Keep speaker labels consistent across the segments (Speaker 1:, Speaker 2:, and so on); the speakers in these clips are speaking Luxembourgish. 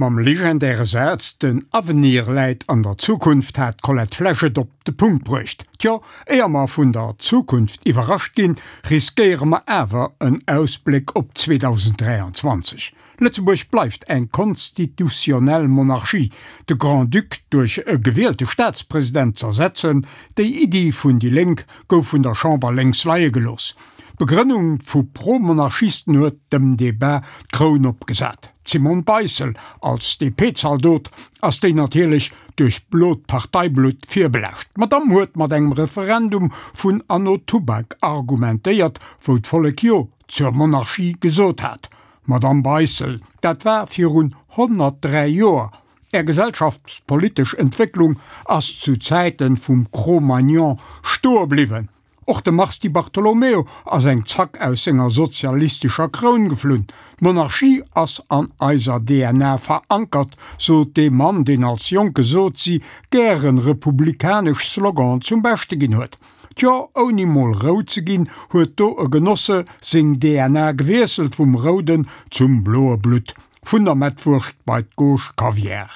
Speaker 1: Mam legendäre Saz Den Avenir läit an der Zukunft hat d'Colette Flesch et op de Punkt bruecht. Tjo, éier mer vun der Zukunft iwwerrascht ginn, riskéiere mer awer en Ausbléck op 2023. Lëtzebuerg bleift eng konstitutionnell Monarchie. De Grand-Duc duerch e gewielte Staatspresident z'ersetzen, déi Iddi vun déi Lénk gouf vun der Chamber lénks leie gelooss. D'Begrënnung vu Pro-Monarchisten huet dem Debat d'Kroun opgesat. D'Simone Beissel als DP-Zaldot ass déi natierlech duerch blot Parteiblutt virbelaascht. D'Madamm huet mat engem Referendum vun anno Tubak argumentéiert, wou d'Vollek Jo zur Monarchie gesot hat. Madamm Beissel, dat war virun 103 Joer. Är gesellschaftspolitesch Entwécklung ass zu Zäiten vum Cro-Magnon stoe bliwwen. Och de Mars Di Bartolomeo ass eng Zack aus senger sozialistescher Kroun geflunn. D'Monarchie ass an eiser DNA verankert, sot dee Mann, deen als jonke Sozi gären republikanesch Sloganen zum Beschte ginn huet. Tjo, ouni mol rout ze ginn, huet do e Genosse seng DNA gewiesselt vum rouden zum bloe Blutt, vun der Mettwurscht bei d'Gauche Kaviar.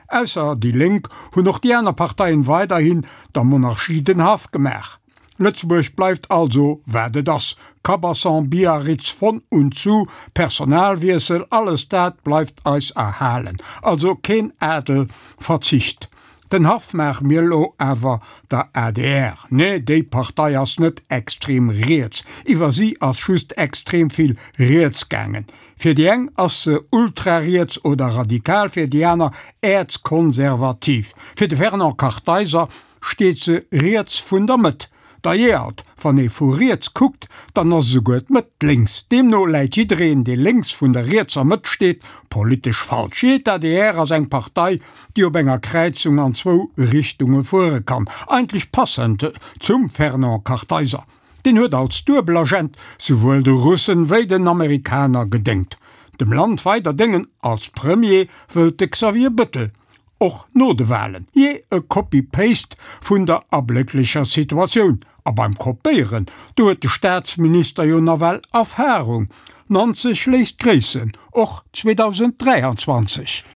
Speaker 1: Ausser déi Lénk hunn och déi aner Parteien weiderhin der Monarchie den Haff gemaach. Lëtzebuerg bleift also wat et ass, Cabasson, Biarritz, von und zu, Personalwiessel, alles dat bleift eis erhalen. Also keen Adel verzicht. Den Haff maache mir elo awer der adr. Nee, déi Partei ass net extrem riets, iwwer si ass just extrem vill riets gaangen. Fir déi eng ass se ultrariets oder radikal, fir déi aner äerzkonservativ. Fir de Fernand Kartheiser steet se riets vun der Mëtt. D'ailleurs, wann ee vu riets kuckt, dann ass esouguer d'Mëtt lénks. Deemno läit jiddereen, dee lénks vun der rietser Mëtt steet, politesch falsch. Jee, d'ADR ass eng Partei, déi op enger Kräizung an zwou Richtunge fuere kann. Eigentlech passend zum Fernand Kartheiser. Deen huet als Duebelagent souwuel de Russen wéi den Amerikaner gedéngt. Dem Land weider déngen als Premier wëllt de Xavier Bëttel. Och no de Wahlen. Jee, e Copy-Paste vun der ablécklecher Situatioun. A beim Kopéieren, do huet de Staatsminister jo nawell Erfahrung. 90 léisst gréissen, och 2023.